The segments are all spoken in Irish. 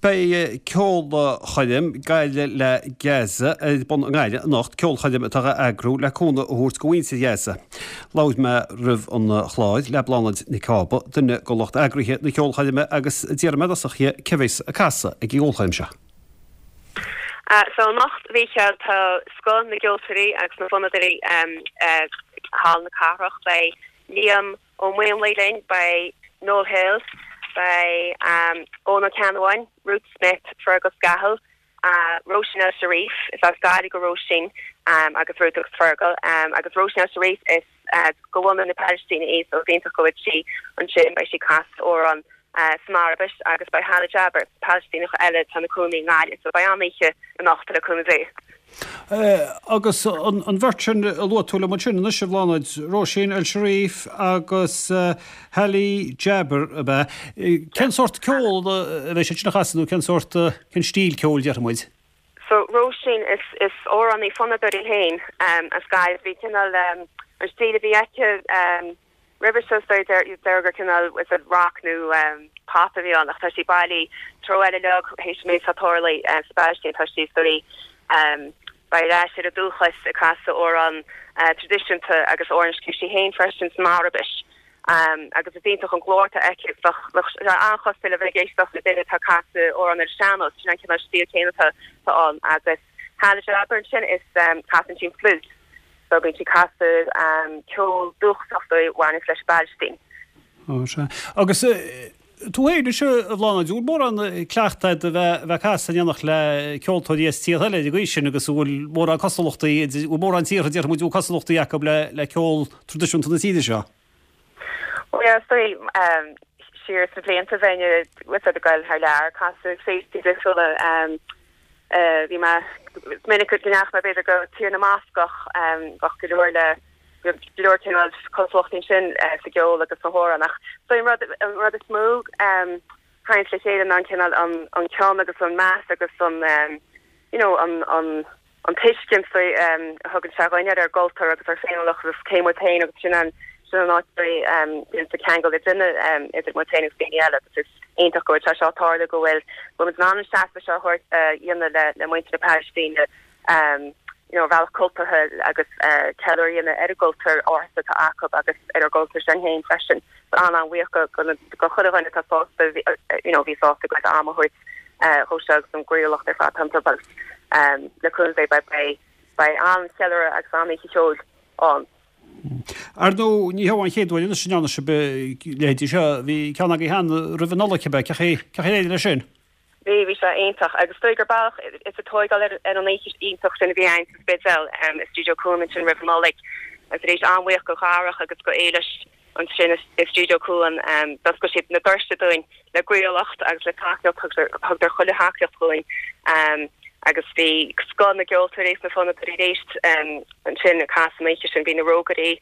Beidh ceolchoirm Gaillimh le Gaza ar bun i nGaillimh anocht, ceolchoirm atá á eagrú le cúnamh a thabhairt do mhuintir Ghaza. Labhair mé roimh an chlár le Bláthnaid Nic Cába, duine de lucht eagraithe na ceolchoirme agus d'iarr mé i dtosach dhi cé bheas ag casadh ag an gceolchoirm seo. So anocht, a Mhícheáil, tá scoth na gceoltóirí agus na bhfonnadóirí i Halla na Cathrach. Beidh Liam Ó Maonlaí linn, beidh Noel Hill, beidh Eoin Ó Ceannabháin, Ruth Smith, Fergal Scahill, Róisín El Sharif, is as Gaillimh do Róisín agus Ruth agus Fergal, agus Róisín El Sharif is de bhunadh na Palaistíne í so is iontach go bhfuil sí ansin, beidh sí ag casadh amhrán san Araibis agus beidh Hala Jaber, Palaistíneach eile atá ina cónaí i nGaillimh so beidh an-oíche anocht le cúnamh Dé. Agus an bheirt sin a luaigh tú liom ansin anois, a Bhláthnaid, Róisín El Sharif agus Hala Jaber, ab ea? Cén sórt ceol a bheidh siad sin a chasadh nó cén sórt, cén stíl ceoil déarfaidh muid? So Róisín, is, is amhránaí fonnadóir í féin as Gaillimh. Bhí cineál, an stíl a bhí aici, Roimhe seo is dóigh deir gur cineál is it rock nó pop a bhí ann ach tá sí bailithe treo eile uilig théis an méid atá tarlaithe sa bPalaistín tá sí is dóigh ar ais ar a dúchas ag casadh amhrán traidisiúnta agus amhrán a scríobh sí féin freisin san Araibis agus is iontach an glór atá aici bheadh bheadh sé an-chosúil le bheith ag éisteacht le duine atá ag casadh amhrán ar an sean-nós sin an cineál stíl céanna atá ann agus Hala Jaber ansin is casann sí an fliúit so bíonn sí ag casadh ceol dúchasach a bhaineanns leis an bPalaistín. Ó sea. Agus tú féin anois a Bhláthnaid, an bhfuil mórán cleachtaidh agat a bheith ag casadh in éineacht le ceoltóirí as tíortha eile ar an gcaoi sin agus an bhfuil mórán cosúlachtaí, an bhfuil mórán tíortha déarfaidh muid a bhfuil cosúlachtaí acu le ceol traidisiúnta na tíre seo? Bhuel yeah, is dóigh siar sna blianta bheinn ag goil thar lear ag casadh féilte difriúla. Bhí mé, is minic go ndeachaigh mé b'fhéidir go Tír na mBascach, bheadh go leor le, go leor cineál cosúlachtaí ansin sa gceol agus sna hamhráin ach is dóigh an rud, an rud is mó a thaganns le chéile ná an cineál an, an cion agus an meas agus an you know an, an, an tuiscint a thugann sé dhuinn ar ár gcultúr agus ár féiniúlacht agus cé muid féin agus sin an sin an áit a bhíonn sa ceangal le duine idir muid féin agus daoine eile agus is iontach go bhfuil sé seo ag tarlú go bhfuil go bhfuil muid in ann an seasamh seo a thabhairt a dhéanamh le le muintir na Palaistíne you know ar bhealach cultúrtha agus ceiliúradh a dhéanamh ar an gcultúr ársa atá acu agus ar ár gcultúr sinn féin freisin. An-an-bhuíoch go go go chuile dhuine atá sásta you know bhí sásta a gcuid ama a thabhairt dhó seo agus an gcroíúlacht ar fad iontu agus le cúnamh Dé beidh beidh an-cheiliúradh agus an-oíche cheoil ann. Ar ndóigh, ní heo an chéad uair anois a ndearna sibh a leithéidí seo. Bhí ceann agaibh cheana roimh an Nollaig, cibé. Cén chaoi ar éirigh leis sin? Bhí, bhí sé iontach agus is dóigh gur bealach is ag tóigeáil ar an oíche iontach sin a bhí againn sa Spidéal i Stiúideo Cuan ansin roimh an Nollaig agus arís an-bhuíoch go Dharach agus go Éilis ansin i Stiúideo Cuan. D'oscail siad na doirse dúinn le croíúlacht agus le tacaíocht, thugadar chuile thacaíocht dhúinn agus bhí scoth na gceoltóirí is na fonnadóirí arís ansin ag casadh an oíche sin. Bhí na Rógairí,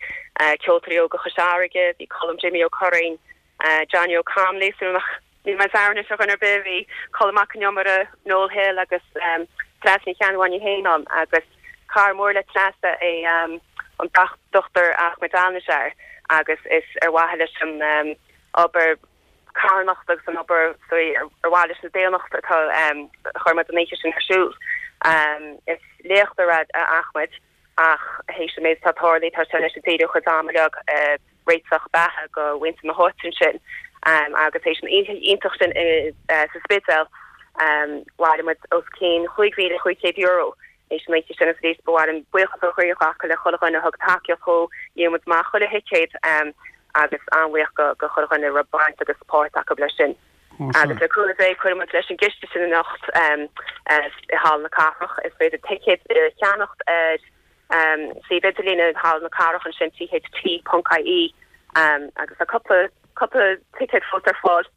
Ceoltóirí Óga Chois Fharraige, bhí Colm Jimmy Ó Curraoin, Johnny O'Connolly, súil nach ndéanfaidh mé dearmad anois ar dhuine ar bith, bhí Colm Mac Con Iomaire, Noel Hill agus Treasa Ní Cheannabháin í féin ann agus cara mór le Treasa é an Dr Ahmed Al-Najjar agus is ar mhaithe leis an obair carthanachta agus an obair ar mhaithe leis an daonnacht atá a chuir muid an oíche sin ar siúl. Is léachtóir é Ahmed ach théis an méid atá tarlaithe tá sé anois ag díriú a chuid ama uilig ag réiteach beatha do mhuintir na háite ansin agus théis an oíche iontach sin sa Spidéal bhailigh muid os cionn €5,500 théis an oíche sin agus arís ba mhaith liom buíochas ó chroí a ghlacadh le chuile dhuine a thug tacaíocht dhó, dhíol muid amach chuile thicéad agus an-bhuíoch go chuile dhuine a raibh baint agus páirt acu leis sin. Agus le cúnamh Dé cuirfidh muid leis an gciste sin anocht i Halla na Cathrach. Is féidir ticéid a cheannacht ar suíomh idirlíne Halla na Cathrach ansin, tht.ie, agus tá cúpla cúpla ticéad fós ar fáil.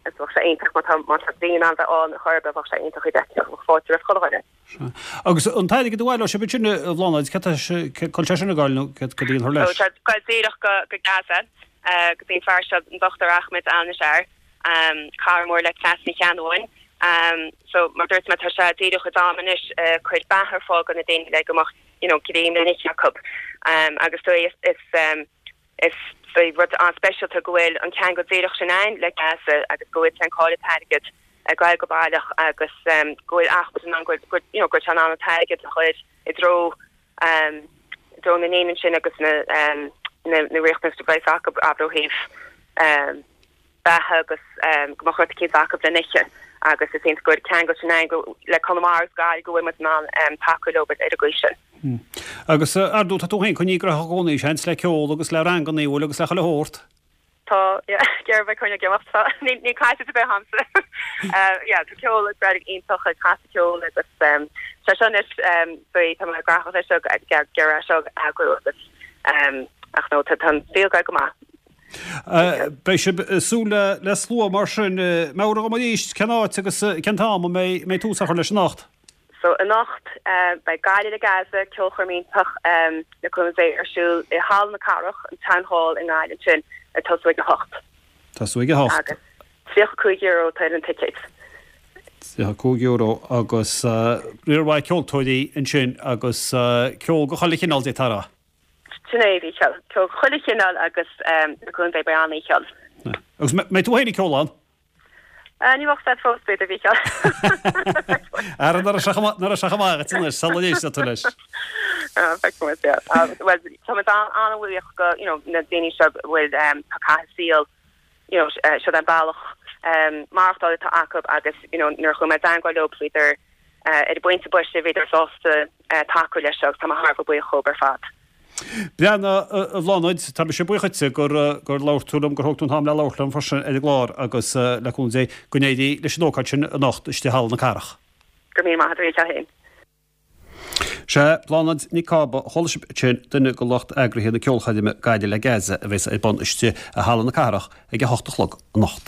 Agus bheadh sé iontach má tá má tá daoine in ann bheith ann chor ar bith, bheadh sé iontach iad a fheiceáil, bheadh fáilte roimh chuile dhuine. Sea. Agus an t-airgead a bhaileoidh sibh ansin, a Bhláthnaid, cad tá sé, cá bhfuil sé sin ag goil nó cad a dhéanfar leis? So tá ag goil díreach go go Gaza, go dtí an fear seo, an Dr Ahmed Al-Najjar, cara mór le Treasa Ní Cheannabháin. So mar dúirt mé tá sé ag díriú a chuid ama anois ag cur beatha ar fáil do na daoine le go mbeadh you know greim le n-ithe acu. Agus is is Is rud an-speisialta go bhfuil an ceangal díreach sin ann le Gaza agus go bhfuil sé ag fáil an t-airgead. ag goil go baileach agus go bhfuil achan duine in ann go you know go bhfuil sé in ann an t-airgead a chur i dtreo i dtreo na ndaoine ansin agus na na riachtanais a bheas acu abair ó thaobh beatha agus go mbeadh rud eicínt acu le n-ithe agus is iontach go bhfuil ceangal sin ann go le Conamara agus Gaillimh go bhfuil muid in ann tacú leo ar an gcaoi sin. Agus ar ndóigh tá tú féin coinnithe gnóthach i gcónaí seans le ceol agus le ranganna bhfuil agus le chuile shórt. Tá, yeah, ag iarraidh bheith coinneáil ag imeacht, tá, níl, níl caite ar bith agamsa. Yeah, tá ceol ag breith iontach ag casadh ceoil agus sé seo anois, tá mé gnóthach leis seo ag iarraidh seo a eagrú agus ach no, tá an saol ag goil go maith. Beidh sibh ag súil le slua mar sin. Meabhraigh dhom arís cén áit agus cén t-am a mbeidh tús á chur leis anocht? So anocht beidh Gaillimh le Gaza, ceolchoirm iontach le cúnamh Dé ar siúl i Halla na Cathrach, an Town Hall i nGaillimh ansin ag tosú ag a hocht. Tosú ag a hocht. Agus €35 atá ar an ticéad. €35 agus riar mhaith ceoltóirí ansin agus ceol de chuile chineál d'fhéadfá a rá. Sin é, a Mhícheáil. Ceol de chuile chineál agus le cúnamh Dé beidh an-oíche ann. Agus mbeidh tú féin ag ceol ann? Ní bheadh fad fós, b'fhéidir, a Mhícheáil. Ara, nuair a sé chomh maith agat anois, sula n-éistfidh tú leis. Feicfidh muid, yeah. Bhuel, tá muid an-bhuíoch go, you know, na daoine seo a bhfuil, tá caitheamh saoil, you know, seo an bealach maireachtála atá acu agus, you know, nuair a chuaigh mé i dteangmháil leo, bhíodar, ar an bpointe boise, bhíodar sásta tacú leis seo agus tá mé thar a bheith buíoch dhóibh ar fad. Breathnaigh, a Bhláthnaid, tá mise buíoch dhuitse gur labhair tú liom, gur thóg tú an t-am le labhairt liom freisin ar an gclár agus, le cúnamh Dé, go n-éirí leis an ócáid sin anocht istigh i Halla na Cathrach. Go raibh míle maith agat, a Mhícheáil féin. Sea, Bláthnaid Nic Cába, chuala sibh ansin, duine de lucht eagraithe na ceolchoirme Gaillimh le Gaza a bheas ar bun istigh i Halla na Cathrach ag a hocht a chlog anocht.